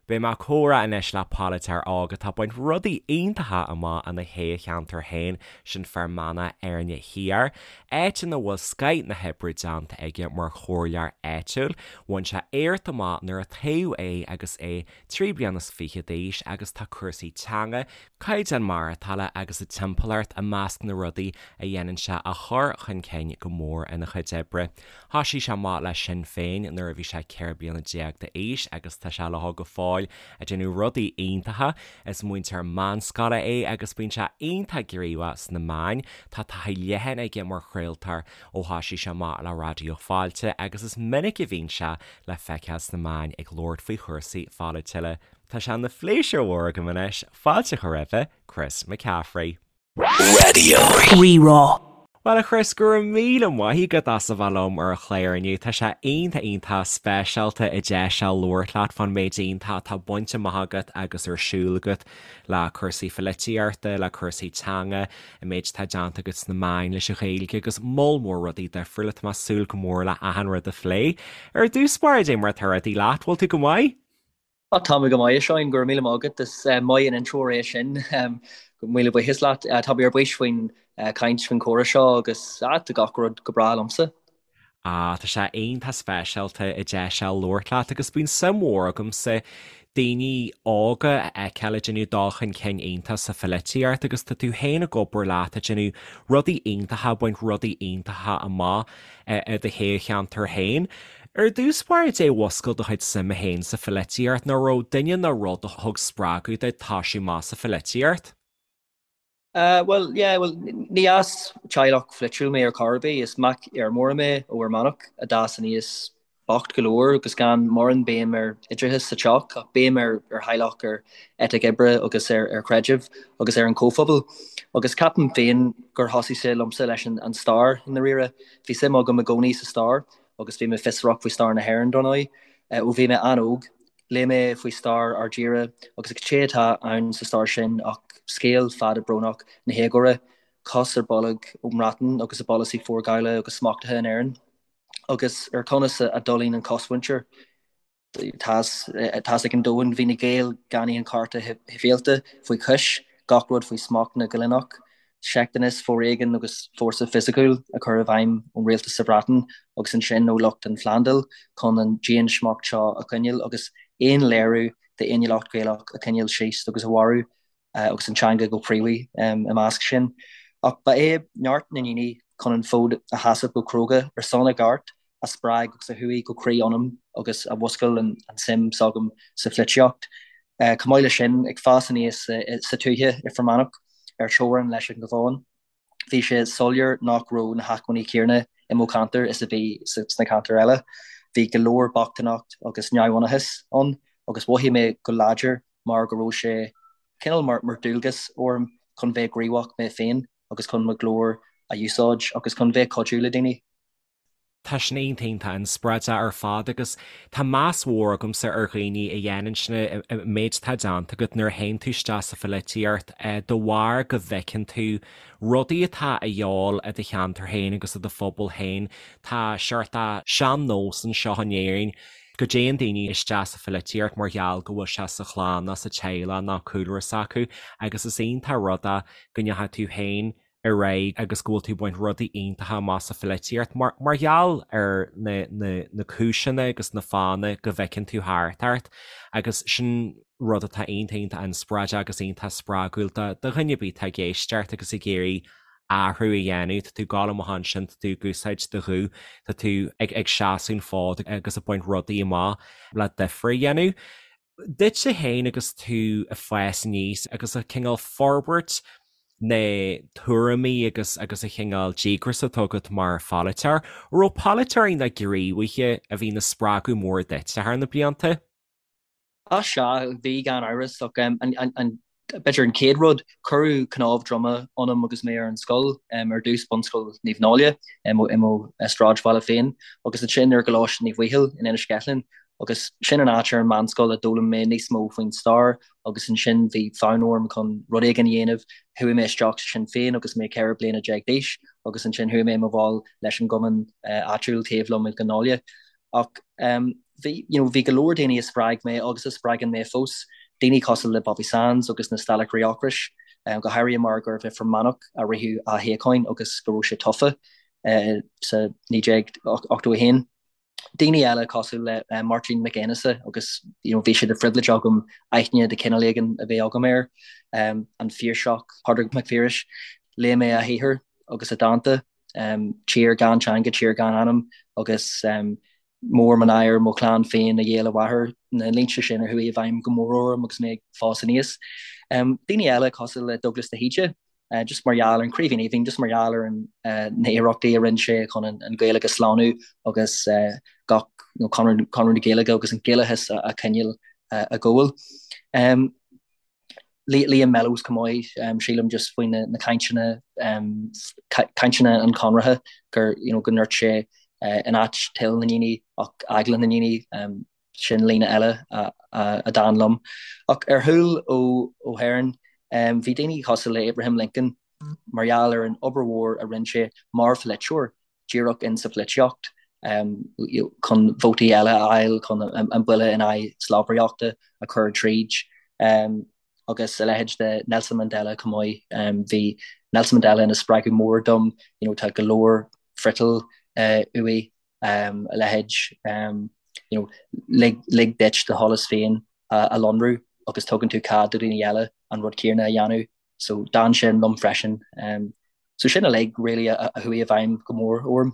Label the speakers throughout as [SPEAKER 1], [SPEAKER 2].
[SPEAKER 1] Beidh mé ag comhrá anois le polaiteoir óg atá ag baint rudaí iontacha amach ina thoghcheantar féin, sin Fear Manach Éirne Thiar, áit ina bhfuil scoith na hoibre déanta aige mar chomhairleoir áitiúil. Bhain sé éacht amach nuair a toghadh é agus é 23 bliana d'aois agus tá cúrsaí teanga, caighdeán maireachtála agus a timpeallacht i measc na rudaí a dhéanann sé a chur chun cinn go mór ina chuid oibre. Thoisigh sé amach le Sinn Féin nuair a bhí sé 14 bliana d'aois agus tá sé leo go fóill ag déanamh rudaí iontacha. Is múinteoir meánscoile é agus bíonn sé iontach gníomhach sna meáin. Tá taithí leathan aige mar chraoltóir ó thoisigh sé amach le Raidió Fáilte agus is minic a bhíonn sé le feiceáil sna meáin ag labhairt faoi chúrsaí pholaitiúla. Tá sé ina phléisiúr mhór agam anois fáilte a chur roimhe Chris McCaffrey.
[SPEAKER 2] Raidió Rí-Rá.
[SPEAKER 1] Bhuel a Chris, go raibh míle maith agat as a bheith liom ar an chlár inniu. Tá sé iontach iontach speisialta an deis seo labhairt leat fán méid iontach atá bainte amach agat agus ar siúl agat le cúrsaí pholaitíochta, le cúrsaí teanga, an méid atá déanta agat sna meáin leis an Ghaeilge agus moll mór rudaí difriúla. Tá mé ag súil go mór le achan rud a phlé. Ar dtús báire, cad é mar atá rudaí leat, bhfuil tú go maith?
[SPEAKER 3] Á, tá mé go maith, a Sheáin, go raibh míle maith agat. Is maith an intreoir é sin. Míle buíochas leat. Tá mé ar bís faoin chaint, faoin chomhrá seo agus tá gach rud go breá liomsa.
[SPEAKER 1] Á, tá sé iontach speisialta an deis seo labhairt leat agus bíonn suim mhór agamsa daoine óga a fheiceáil ag déanamh dul chun cinn iontach sa pholaitíocht agus tá tú féin ag obair leat ag déanamh rudaí iontacha, ag baint rudaí iontacha amach i do thoghcheantar féin. Ar dtús báire, cad é a mhúscail do chuid suime féin sa pholaitíocht, nó an raibh duine nó rud a thug spreagadh duit toisiú amach sa pholaitíocht?
[SPEAKER 3] Bhuel, yeah, bhuel, ní as teaghlach pholaitiúil mé ar chor ar bith. Is mac fheirmeora mé ó Fhear Manach a d'fhás aníos bocht go leor agus gan mórán béim ar oideachas sa teach ach béim ar theaghlach, ar eitic oibre agus ar chreideamh agus ar an chomhphobal. Agus ceapaim féin gur thosaigh sé liomsa leis an stair i ndáiríre. Bhí suim agam i gcónaí sa stair agus bhí mé fiosrach faoi stair na hÉireann, dar ndóigh, ó bhí mé an-óg. Léigh mé faoi stair ár dtíre agus cad é atá ann sa stair sin ach scéal fada brónach na héagóra, cos ar bolg ón mBreatain agus a bpolasaí forghabhála agus smachtaithe in Éirinn, agus ar conas a d'fhulaing an chosmhuintir. Tá a fhios ag an domhan, bhí na Gaeil gan aon chearta sibhialta faoi chois, gach rud faoi smacht na gcoilíneach, seicteachas, foréigean agus fórsa fisiciúil a chur i bhfeidhm ón rialtas sa Bhreatain agus ansin ó lucht an Phlandáil chun an diansmacht seo a choinneáil agus aon léiriú d'fhéiniúlacht Ghaelach a choinneáil síos agus a mharú agus an teanga go príomha i measc sin. Ach ba é neart na ndaoine chun an fód a sheasamh go cróga ar son a gceart a spreag agus a chuaigh go croí ionam agus a mhúscail an tsuim s'agam sa pholaitíocht. Chomh maith leis sin, ag fás aníos sa tuaithe i Fear Manach ar teorainn leis an gCabhán, bhí sé soiléir nach raibh na hacmhainní céanna i mo cheantar is a bhí sna ceantair eile. Bhí go leor bochtaineacht agus neamhionannachas ann agus mhothaigh mé go láidir mar go raibh sé cineál mar dualgas orm chun bheith gníomhach mé féin agus chun mo ghlór a úsáid agus chun bheith cuidiú le daoine.
[SPEAKER 1] Tá sin iontach iontach inspioráideach ar fad agus tá meas mhór agamsa ar dhaoine a dhéanann sin, an méid atá déanta agat nuair a théann tú isteach sa pholaitíocht de bharr go bhfeiceann tú rudaí atá a dhíobháil i do cheantar féin agus i do phobal féin. Tá seort de sean-nós anseo in Éirinn go dtéann daoine isteach sa pholaitíocht mar gheall go bhfuil sé sa chlann nó sa teaghlach nó cúlra s'acu agus is iontach rud é go ndeachaigh tú féin ar aghaidh agus go bhfuil tú ag baint rudaí iontacha amach sa pholaitíocht mar mar gheall ar na na na cúiseanna agus na fáthanna go bhfeiceann tú thart ort agus sin rud atá iontach iontach inspioráideach agus iontach spreagúil do do dhuine ar bith atá ag éisteacht agus ag iarraidh athrú a dhéanamh. Tá tú ag gabháil amach ansin, tá tú ag úsáid do ghuth, tá tú ag ag seasamh an fód agus ag baint rudaí amach le difear a dhéanamh. Duitse féin agus tú ag fás aníos agus ag cineál forbairt na tuairimí agus agus an chineál díograis atá agat mar pholaiteoir, an raibh polaiteoirí nó gníomhaithe a bhí ina spreagadh mór duitse thar na blianta?
[SPEAKER 3] Á sea, bhí gan amhras ach an B'fhéidir an chéad rud, cuireadh cnámh droma ionam agus mé ar an scoil, ar dtús Bunscoil Naomh Náille i mo sráidbhaile féin agus ansin ar gColáiste Naomh Bhaoighill in Inis Ceithleann agus sin an áit ar an meánscoil a d'fhoghlaim mé níos mó faoin stair agus ansin bhí fonn orm chun rud éigin a dhéanamh. Chuaigh mé isteach sa Sinn Féin agus mé 14 bliana d'aois agus ansin chuaigh mé i mo bhall leis an gcumann áitiúil taobh liom i gCill Náile. Ach. Bhí, you know, bhí go leor daoine a spreag mé agus a spreagann mé fós, daoine cosúil le Bobby Sands agus na Staiceoirí Ocrais, go háirithe mar gurbh i Fear Manach a ritheadh a shíocháin agus go raibh sé tofa sa 1981. Daoine eile cosúil le Máirtín Mac Aonghusa agus, you know, bhí sé de phribhléid agam aithne de chineál éigin a bheith agam air, an Piarsach, Pádraig Mac Piarais, léigh mé a shaothar agus a dhánta, Tír gan teanga, tír gan anam agus Mór mo náire mo chlann féin a ghéill a mháthair, na línte sin a chuaigh i bhfeidhm go mór orm agus mé ag fás aníos. Daoine eile cosúil le Dubhghlas de hÍde, just mar gheall ar an Chraoibhín Aoibhinn, just mar gheall ar an na hiarrachtaí a rinne sé chun an Ghaeilge a shlánú agus gach you know, Conradh, Conradh na Gaeilge agus an Gaelachas a choinneáil ag gabháil. Liam Mellows chomh maith, sílim just faoi na cainteanna, cainteanna an Chonartha gur, you know, go ndúirt sé in áit toil na ndaoine ach eagla na ndaoine, sin líne eile a d'fhan liom. Ach ar chúl ó hÉirinn, bhí daoine cosúil le Abraham Lincoln mar gheall ar an obair mhór a rinne sé mar pholaiteoir, díreach in sa pholaitíocht chun vótaí eile a fháil chun an buille in aghaidh slabhraíochta a chur tríd agus a leithéid de Nelson Mandela chomh maith. Bhí Nelson Mandela ina spreagadh mór dom, you know, tá go leor friotal uaidh, a leithéid, you know, lig, lig duit do sholas féin a lonrú agus tugann tú cead do dhaoine eile an rud céanna a dhéanamh. So d'fhan sin liom freisin. So sin uilig really a chuaigh i bhfeidhm go mór orm.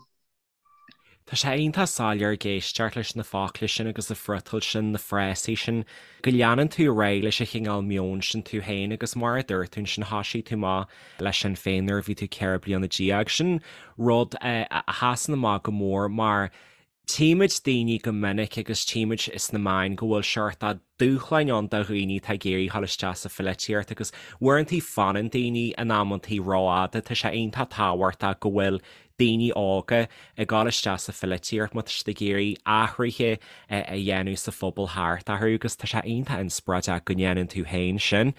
[SPEAKER 1] Tá sé iontach soiléir ag éisteacht leis na focla sin agus na friotail sin, na frásaí sin, go leanann tú ar aghaidh leis an chineál meoin sin tú féin agus mar a dúirt tú ansin thosaigh tú amach le Sinn Féin nuair a bhí tú 14 bliana. Sin rud a sheasann amach go mór mar Tchímid daoine go minic agus tchímid sna meáin go bhfuil seort dúshláin ann do dhaoine atá ag iarraidh dhul isteach sa pholaitíocht agus uaireantaí fanann daoine in amantaí rófhada. Tá sé iontach tábhachtach go bhfuil daoine óga ag dul isteach sa pholaitíocht má tá siad ag iarraidh athruithe a dhéanamh sa phobal thart orthu agus tá sé iontach inspioráideach go ndéanann tú féin sin.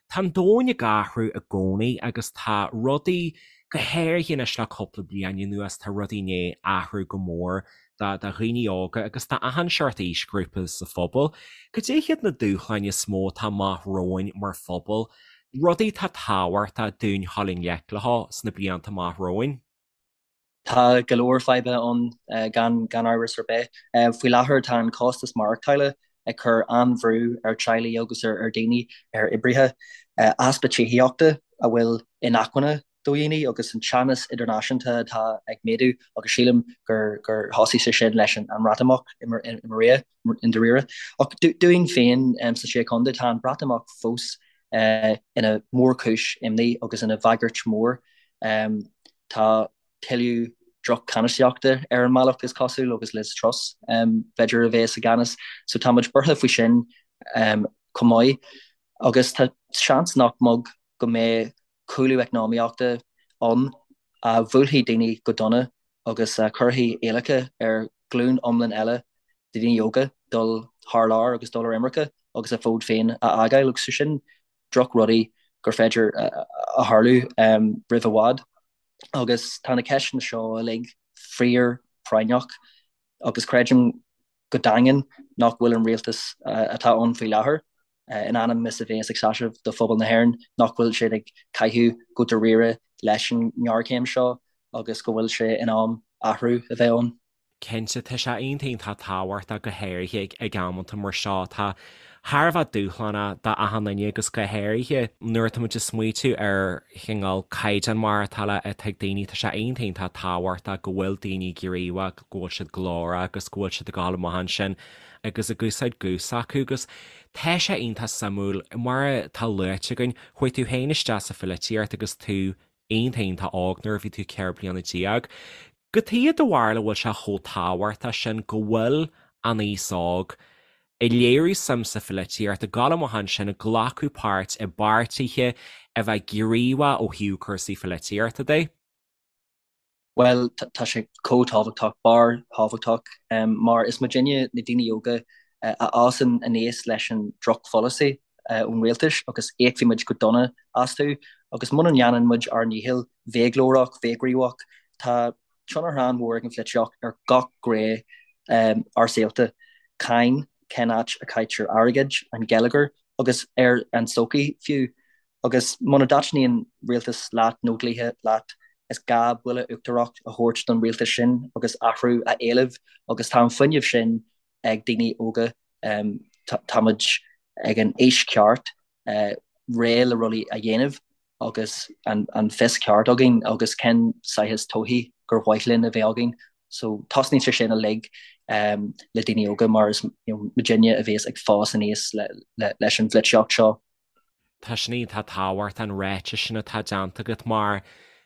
[SPEAKER 1] Tá an domhan ag athrú i gcónaí agus tá rudaí Go háirithe anois le cúpla bliain anuas tá rudaí i ndiaidh athrú go mór do dhaoine óga agus do achan seort aoisghrúpa sa phobal. Cad é hiad na dúshláin is mó atá amach romhainn mar phobal, rudaí atá tábhachtach dúinn dhul i ngleic leo sna blianta amach romhainn?
[SPEAKER 3] Tá go leor fadhbanna ann gan gan amhras ar bith. Faoi láthair tá an costas maireachtála ag cur an-bhrú ar teaghlaigh agus ar daoine, ar oibrithe. Easpa tithíochta a bhfuil inacmhainne do dhaoine agus an teannas idirnáisiúnta atá ag méadú agus sílim gur gur thosaigh sé sin leis an mBreatimeacht i ndáiríre. Ach dúinn féin sna Sé Chontae tá an Breatimeacht fós ina mhórchúis imní agus ina bhagairt mhór. Tá tuilleadh droch-cheannasaíochta ar an mbealach is cosúil agus Liz Truss b'fhéidir a bheas i gceannas. So tá muid buartha faoi sin chomh maith. Agus tá seans nach beag go mbeidh cúlú eacnamaíochta ann a bhuailfidh daoine go dona agus a chuirfidh iallach ar ghlúin iomlán eile de dhaoine óga dul thar lear agus dul ar imirce agus a bhfód féin a fhágáil agus sin drochrudaí gur féidir a tharlú roimh i bhfad. Agus tá na ceisteanna seo uilig fíor práinneach agus creidim go daingean nach bhfuil an rialtas atá ann faoi láthair, in ainm is a bheas ag seasamh do phobal na hÉireann, nach bhfuil siad ag caitheamh go dáiríre leis an ngéarchéim seo agus go bhfuil sé in am athrú a bheith ann.
[SPEAKER 1] Cinnte, tá sé iontach iontach tábhachtach go háirithe ag amanta mar seo atá thar a bheith dúshlánach d'achan duine agus go háirithe nuair atá muid ag smaoitiú ar chineál caighdeán maireachtála atá ag daoine, tá sé iontach iontach tábhachtach go bhfuil daoine gníomhach, go bhfuil siad glórach agus go bhfuil siad ag dul amach ansin agus ag úsáid guth s'acu agus tá sé iontach suimiúil mar atá luaite againn, chuaigh tú féin isteach sa pholaitíocht agus tú iontach iontach óg nuair a bhí tú 14 bliana. Cad chuige do bharúil a bhfuil sé chomh tábhachtach sin go bhfuil an aos óg ag léiriú suim sa pholaitíocht, ag dul amach ansin, ag glacadh páirt i bpáirtithe, a bheith gníomhach ó thaobh cúrsaí pholaitíochta de?
[SPEAKER 3] Bhuel, tá sé chomh tábhachtach, barrthábhachtach, mar is muidinne, na daoine óga, a fhásann aníos leis an drochpholasaí ón rialtas agus íocfaidh muid go dona astu agus muna ndéanann muid ár ndícheall bheith glórach, bheith gníomhach, tá tionchar an-mhór ag an pholaitíocht ar gach gné ár saolta. Cáin, cén áit a caitear airgead, an geilleagar agus ar an tsochaí fiú. Agus muna dtaitníonn rialtas leat nó dlíthe leat, is gá buille uachtarach a thabhairt don rialtas sin agus athrú a éileamh agus tá an fuinneamh sin ag daoine óga. Táimid ag an aois ceart réidh le rudaí a dhéanamh agus an fios ceart againn agus cén saghas todhchaí gur mhaith linn a bheith againn. So tosnaíonn sé sin uilig le daoine óga mar is muidinne a bhéas ag fás aníos leis an pholaitíocht seo.
[SPEAKER 1] Tá sin iontach tábhachtach an ráiteas sin atá déanta agat mar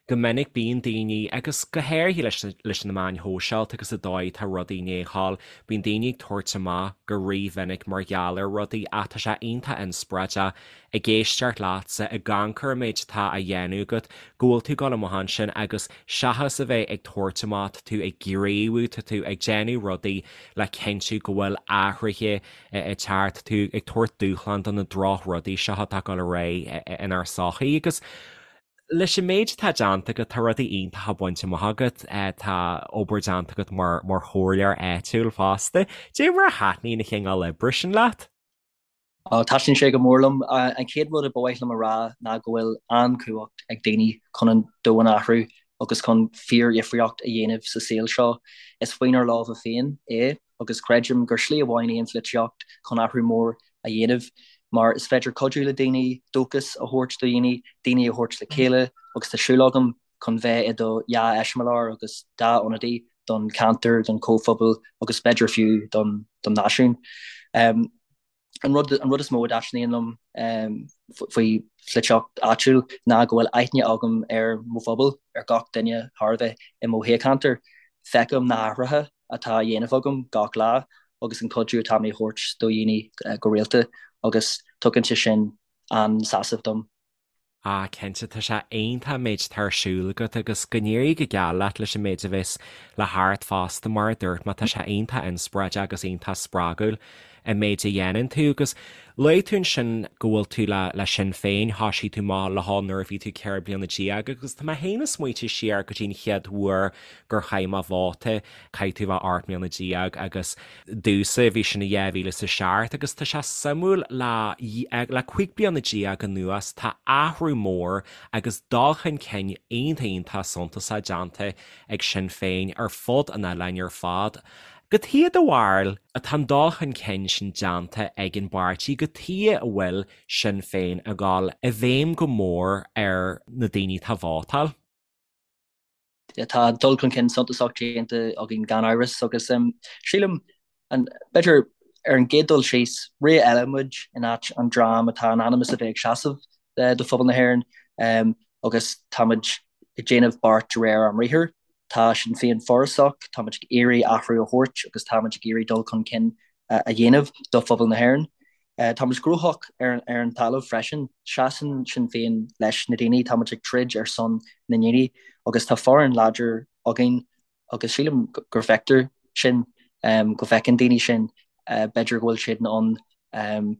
[SPEAKER 1] go minic bíonn daoine, agus go háirithe leis leis na meáin shóisialta agus an dóigh atá rudaí i ndiaidh a ghabháil, bíonn daoine ag tabhairt amach go rímhinic mar gheall ar rudaí ach tá sé iontach inspioráideach ag éisteacht leatsa, ag amharc ar an méid atá á dhéanamh agat, go bhfuil tú ag dul amach ansin agus seachas a bheith ag tabhairt amach, tá tú ag gníomhú, tá tú ag déanamh rudaí le cinntiú go bhfuil athruithe ag teacht, tá tú ag tabhairt dúshlán do na drochrudaí seo atá ag dul ar aghaidh inár sochaí agus leis an méid atá déanta agat, tá rudaí iontacha bainte amach agat, tá obair déanta agat mar mar chomhairleoir áitiúil fosta. Cad é mar a thaitníonn an cineál oibre sin leat?
[SPEAKER 3] Taitníonn sé go mór liom. An chéad rud a ba mhaith liom a rá ná go bhfuil an-chumhacht ag daoine chun an domhan a athrú agus chun fíordhifríocht a dhéanamh sa saol seo. Is faoinár lámha féin é agus creidim gur slí amháin í an pholaitíocht chun athrú mór a dhéanamh mar is féidir cuidiú le daoine, dóchas a thabhairt do dhaoine, daoine a thabhairt le chéile agus tá súil agam chun bheith i do dhea-eiseamláir agus dea-ionadaí don cheantar, don chomhphobal agus b'fhéidir fiú don náisiún. An rud an rud is mó a dtaitníonn liom faoi pholaitíocht áitiúil ná go bhfuil aithne agam ar mo phobal, ar gach duine thar a bheith i mo thoghcheantar. Feicim na hathruithe atá á dhéanamh agam gach lá agus an cuidiú atá mé a thabhairt do dhaoine go rialta agus tugann sé sin an-sásamh dom.
[SPEAKER 1] Ah, cinnte, tá sé iontach an méid atá ar siúl agat agus go n-éirí go geal leat leis an méid a bheas le theacht fosta, mar a dúirt mé, tá sé iontach inspioráideach agus iontach spreagúil an méid a dhéanann tú agus luaigh tú ansin go bhfuil tú le le Sinn Féin, thoisigh tú amach leo nuair a bhí tú 14 bliana agus tá mé féin ag smaoitiú siar go dtí an chéad uair gur chaith mé vóta, caithfidh tú a bheith 18 mbliana agus Domhsa, bhí sin i 2007 agus tá sé suimiúil le le 15 bliana anuas tá athrú mór agus dul chun cinn iontach iontach suntasach déanta ag Sinn Féin ar fud an oileáin ar fad. Cad chuige do bharúil atá an dul chun cinn sin déanta ag an bpáirtí, cad chuige a bhfuil Sinn Féin ag dul i bhfeidhm go mór ar na daoine atá ag vótáil?
[SPEAKER 3] Tá dul chun cinn suntasach déanta againn gan amhras agus sílim, b'fhéidir ar an gcéad dul síos, ré eile muid in áit an dream atá in ainm is a bheith ag seasamh do phobal na hÉireann agus táimid ag déanamh beart de réir ár mbriathair. Tá Sinn Féin forásach, táimid ag iarraidh athrú a thabhairt agus táimid ag iarraidh dul chun cinn a dhéanamh do phobal na hÉireann. Táimid gnóthach ar an talamh freisin. Seasann Sinn Féin leis na daoine, táimid ag troid ar son na ndaoine agus tá foireann láidir againn agus sílim gur feictear sin, go bhfeiceann daoine sin. B'fhéidir go bhfuil siad in ann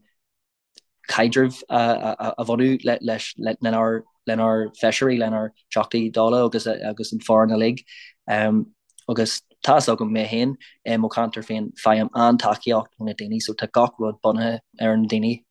[SPEAKER 3] caidreamh a bhunú leis lenár lenár bhfeisirí, lenár dTeachtaí Dála agus agus an foireann uilig. Agus tá fhios agam mé féin, i mo cheantar féin, faighim an-tacaíocht ó na daoine, so tá gach rud bunaithe ar na daoine.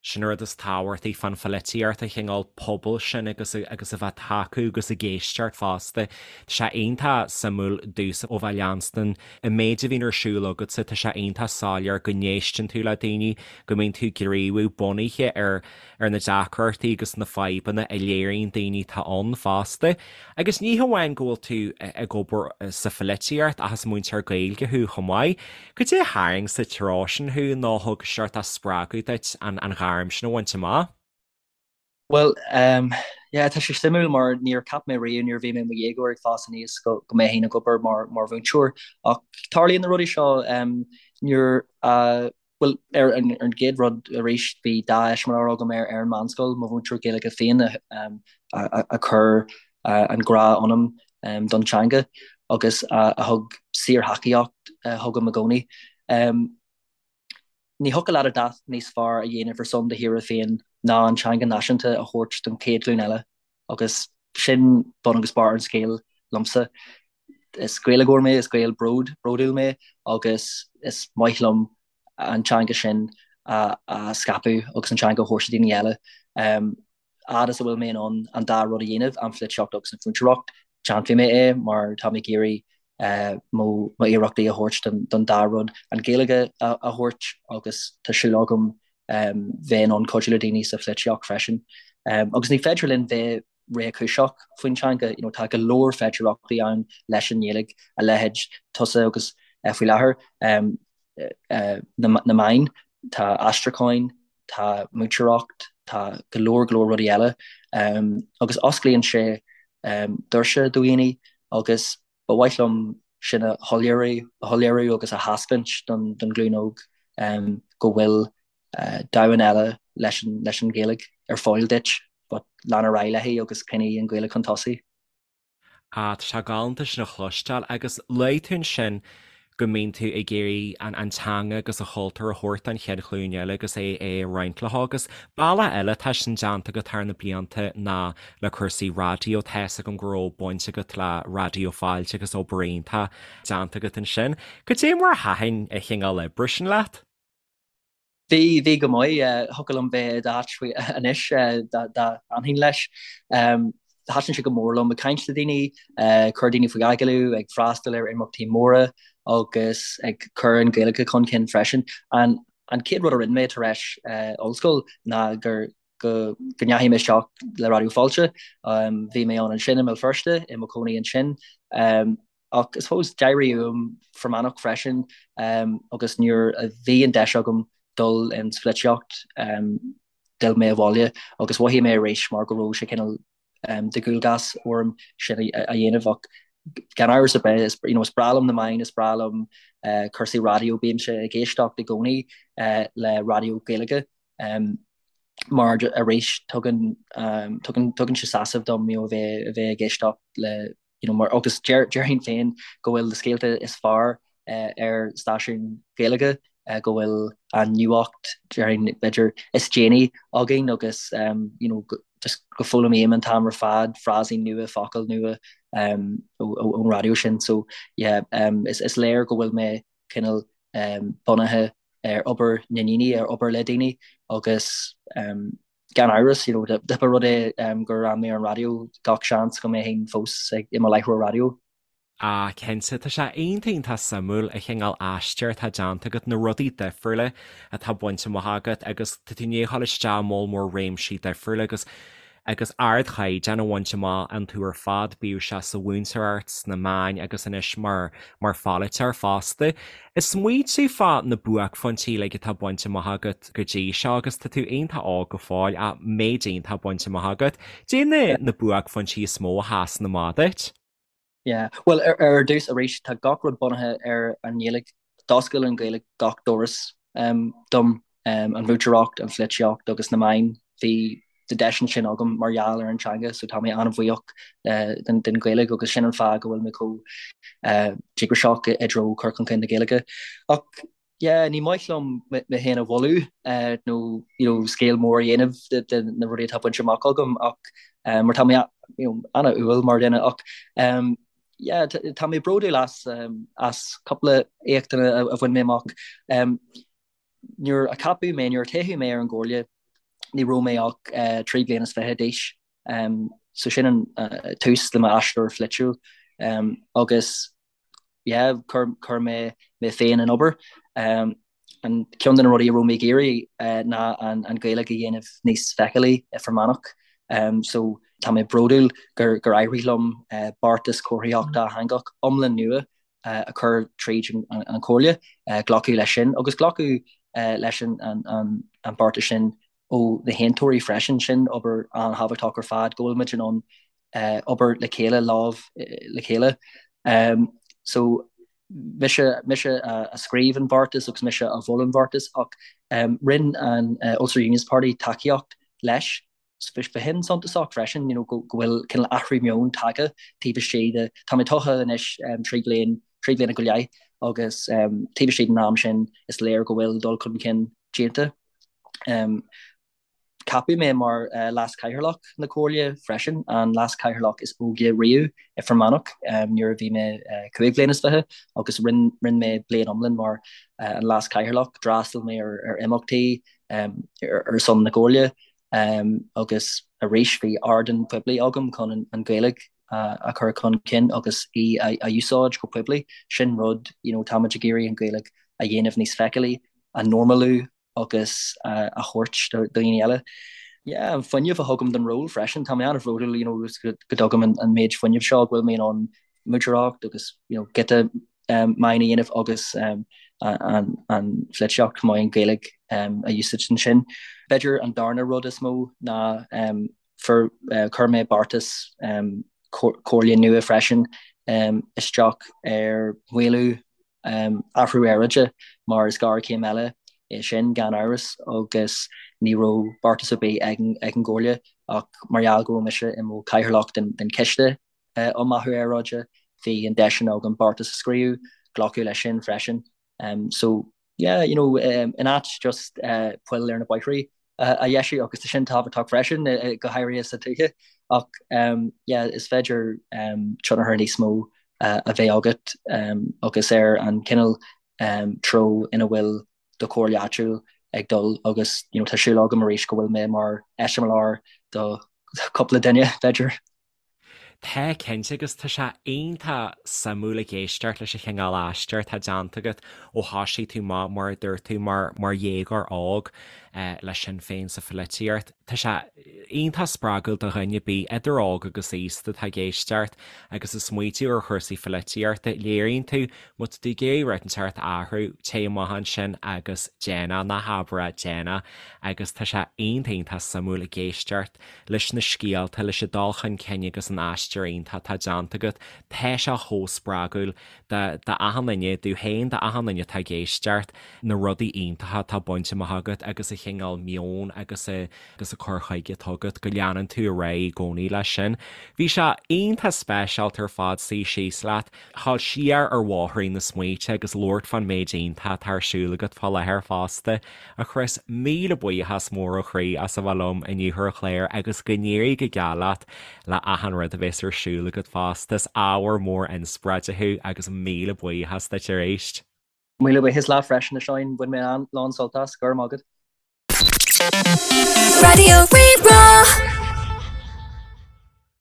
[SPEAKER 1] Sin an rud is tábhachtaí fán pholaitíocht, an cineál pobail sin agus agus a bheith ag tacú agus ag éisteacht fosta. Tá sé iontach suimiúil domhsa ó bheith ag leanstan an méid a bhíonn ar siúl agatsa, tá sé iontach soiléir go n-éisteann tú le daoine, go mbíonn tú ag gníomhú bunaithe ar ar na deacrachtaí agus na fadhbanna a léiríonn daoine atá ann fosta. Agus ní hamháin go bhfuil tú ag obair sa pholaitíocht ach is múinteoir Gaeilge thú chomh maith. Cad é a tharraing sa treo sin thú nó a thug seort spreagadh duit an ghairm sin a bhaint amach?
[SPEAKER 3] Bhuel, yeah, tá sé suimiúil mar níor cheap mé riamh nuair a bhí mé i mo dhéagóir ag fás aníos go mbeinn ag obair mar mhúinteoir. Ach tarlaíonn na rudaí seo nuair a Bhuel, ar an gcéad rud arís, bhí dea-eiseamláir agam ar an meánscoil, mo mhúinteoir Gaeilge féin a chuir an grá ionam don teanga agus a thug síorthacaíocht chugam i gcónaí. Ní thiocfadh leat a dhath níos fearr a dhéanamh ar son do thíre féin ná an teanga náisiúnta a thabhairt don chéad ghlúin eile agus sin bun agus barr an scéil liomsa. Is Gaeilgeoir mé, is Gael bród, bródúil mé agus is maith liom an teanga sin a scaipeadh agus an teanga a thabhairt do daoine eile. Fhad is a bhfuil mé in ann an dá rud a dhéanamh, an pholaitíocht agus an mhúinteoireacht, déanfaidh mé é mar tá mé ag iarraidh mo iarrachtaí a thabhairt don dá rud, an Ghaeilge a thabhairt agus tá súil agam bheith in ann cuidiú le daoine sa pholaitíocht freisin. Agus ní féidir linn bheith réchúiseach faoin teanga, you know, tá go leor féidearthachtaí ann leis an nGaeilge, a leithéid tusa agus faoi láthair na meáin, tá aistriúcháin, tá múinteoireacht, tá go leor go leor rudaí eile agus osclaíonn sé doirse do dhaoine agus ba mhaith liom sin a shoiléiriú, a shoiléiriú agus a thaispeáint don ghlúin óg go bhfuil domhan eile leis an Ghaeilge ar fáil duit but lean ar aghaidh léi agus coinnigh an Ghaeilge chun tosaigh.
[SPEAKER 1] Ah, tá sé galánta sin a chloisteáil agus luaigh tú ansin go mbíonn tú ag iarraidh an an teanga agus an chultúr a thabhairt don chéad ghlúin eile agus é é a roinnt leo agus bealach eile atá sin déanta agat thar na blianta ná le cúrsaí raidió. Tá fhios agam go raibh baint agat le Raidió Fáilte agus obair iontach déanta agat ansin. Cad é mar a thaitin an chineál oibre sin leat?
[SPEAKER 3] Bhí, bhí go maith. Thiocfadh liom bheith i d'áit faoi anois dá bhfanfainn leis. Thaitin sé go mór liom ag caint le daoine, cur daoine faoi agallamh, ag freastal ar imeachtaí móra agus ag cur an Ghaeilge chun cinn freisin. An an chéad rud a rinne mé tar éis ollscoil ná gur go go ndeachaigh mé isteach le Raidió Fáilte. Bhí mé ann ansin i mBéal Feirste, i mo chónaí ansin. Ach I suppose d'éirigh uaim Fear Manach freisin agus nuair a bhí an deis agam dul ins pholaitíocht d'fhill mé abhaile agus mhothaigh mé arís mar go raibh sé cineál de dhualgas orm sin a dhéanamh ach gan amhras ar bith is you know is breá liom na meáin, is breá liom cúrsaí raidió, bímse ag éisteacht i gcónaí le raidió Gaeilge mar arís tugann tugann tugann sé sásamh dom you know a bheith a bheith ag éisteacht le you know, mar, agus déarfainn féin go bhfuil na scéalta is fearr ar stáisiún Gaeilge, go bhfuil an nuacht, déarfainn, b'fhéidir, is déanaí againn agus, you know, just go bhfoghlaimím an t-am ar fad frásaí nua, focail nua ón raidió sin. So, yeah, is, is léir go bhfuil mé cineál bunaithe ar obair na ndaoine, ar obair le daoine agus, Gan amhras, you know, dá mba rud é gur fhan mé ar an raidió, gach seans go mbeinn fós i mo láithreoir raidió.
[SPEAKER 1] Ah, cinnte, tá sé iontach iontach suimiúil an chineál aistear atá déanta agat, na rudaí difriúla atá bainte amach agat agus tá tú i ndiaidh a dhul isteach i moll mór réimsí difriúla agus agus ardchaighdeán a bhaint amach iontu ar fad, bíodh sé sa mhúinteoireacht, sna meáin agus anois mar mar pholaiteoir fosta. Ag smaointiú fá na buaicphointí uilig atá bainte amach agat go dtí seo agus tá tú iontach óg go fóill ach méid iontach bainte amach agat. Cad é na buaicphointí is mó a sheasann amach duit?
[SPEAKER 3] Yeah. Bhuel, ar ar dtús arís, tá gach rud bunaithe ar an nGaeilge. D'oscail an Ghaeilge gach doras dom, an mhúinteoireacht, an pholaitíocht agus na meáin. Bhí na deiseanna sin agam mar gheall ar an teanga so tá mé an-bhuíoch den Ghaeilge agus sin an fáth go bhfuil mé chomh díograiseach i dtreo cur chun cinn na Gaeilge. Ach yeah, ní maith liom mé féin a mholadh nó you know scéal mór a dhéanamh de na rudaí atá bainte amach agam ach mar tá mé you know an-umhal mar dhuine ach yeah tá mé bródúil as as cúpla éachtanna a bhain mé amach. Nuair a ceapadh mé, nuair a toghadh mé ar an gComhairle, ní raibh mé ach 23 bliana d'aois. So sin an tús le m'aistear pholaitiúil. Agus yeah, chuir mé mé féin in obair. An ceann de na rudaí a raibh mé ag iarraidh ná an Ghaeilge a dhéanamh níos feiceálaí i Fear Manach. So tá mé bródúil gur éirigh liom beartas comharthaíochta dátheangach iomlán nua a chur tríd an Chomhairle, glacadh leis sin agus glacadh leis an beartas sin ó na haontóirí freisin. Sin obair an-thábhachtach ar fad, go bhfuil muid in ann obair le chéile, lámh le chéile. So mise mise a scríobh an beartas agus mise a mhol an beartas ach rinne an Ulster Unionist Party tacaíocht leis. B'shin suntasach freisin, you know, go bhfuil cineál athrú meoin tagtha taobh istigh de, tá mé tofa anois 3 bliain, 3 bliana go leith agus taobh istigh den am sin is léir go bhfuil dul chun cinn déanta. Ceapadh mé mar Leas-Chathaoirleach na Comhairle freisin, an Leas-Chathaoirleach is óige riamh i Fear Manach nuair a bhí mé 25 bhliain agus rinne mé bliain iomlán mar an Leas-Chathaoirleach. D'fhreastail mé ar imeachtaí ar son na Comhairle agus arís bhí ardán poiblí agam chun an Ghaeilge a chur chun cinn agus í a úsáid go poiblí. Sin rud, you know, táimid ag iarraidh an Ghaeilge a dhéanamh níos feiceálaí, a normalú agus a thabhairt do dhaoine eile. Yeah, an fuinneamh a thugaim don ról freisin, tá mé an-bhródúil you know, go dtugaim an, an méid fuinnimh seo go bhfuil mé in ann múinteoireacht agus you know, giota um, meáin a dhéanamh agus um, an, an pholaitíocht chomh maith an Ghaeilge um, a úsáid ansin. B'fhéidir an darna rud is mó ná um, for, uh, chuir mé beartas um, comhairle nua freisin um, isteach ar mhaolú athrú aeráide mar is géarchéim eile é sin gan amhras agus ní raibh beartas ar bith ag an gComhairle ach mar gheall go raibh mise i mo chathaoirleach den Chiste um Athrú Aeráide bhí an deis sin agam beartas a scríobh, glacadh leis sin freisin. So yeah, you know, in áit just poill ar na bóithrí a dheisiú agus tá sin tábhachtach freisin go háirithe sa tuaithe ach yeah, is féidir tionchar níos mó a bheith agat agus ar an cineál treo ina bhfuil do chomhairle áitiúil ag dul agus you know, tá súil agam arís go bhfuil mé mar eiseamláir do chúpla duine b'fhéidir.
[SPEAKER 1] Tá, cinnte, agus tá sé iontach suimiúil ag éisteacht leis an chineál aistear atá déanta agat ó thoisigh tú amach, mar a dúirt tú, mar mar dhéagóir óg le Sinn Féin sa pholaitíocht. Tá sé iontach spreagúil do dhuine ar bith, idir óg agus aosta, atá ag éisteacht agus ag smaoitiú ar chúrsaí pholaitíochta. Léiríonn tú, má tá tú ag iarraidh rud inteacht a athrú, téigh amach ansin agus déan é, ná habair é, déan é. Agus tá sé iontach iontach suimiúil ag éisteacht leis na scéalta, leis an dul chun cinn agus an aistear iontach atá déanta agat. Tá sé chomh spreagúil do achan duine, domh féin, do achan duine atá ag éisteacht, na rudaí iontacha atá bainte amach agat agus an chineál meoin agus agus an cur chuige atá agat, go leanann tú ar aghaidh i gcónaí leis sin. Bhí sé iontach speisialta ar fad suí síos leat. Dhul siar ar bhóithrín na smaointe agus labhairt fán méid iontach atá ar siúl agat fá láthair fosta. A Chris, míle buíochas mór ó chroí as a bheith liom inniu ar an chlár agus go n-éirí go geal leat le achan rud a bheas ar siúl agat fosta. Is ábhar mór inspioráide thú agus míle buíochas duit arís.
[SPEAKER 3] Míle buíochas leat freisin a Sheáin, bhain mé an-lán sult as, go raibh maith agat.
[SPEAKER 2] Raidió Rí-Rá.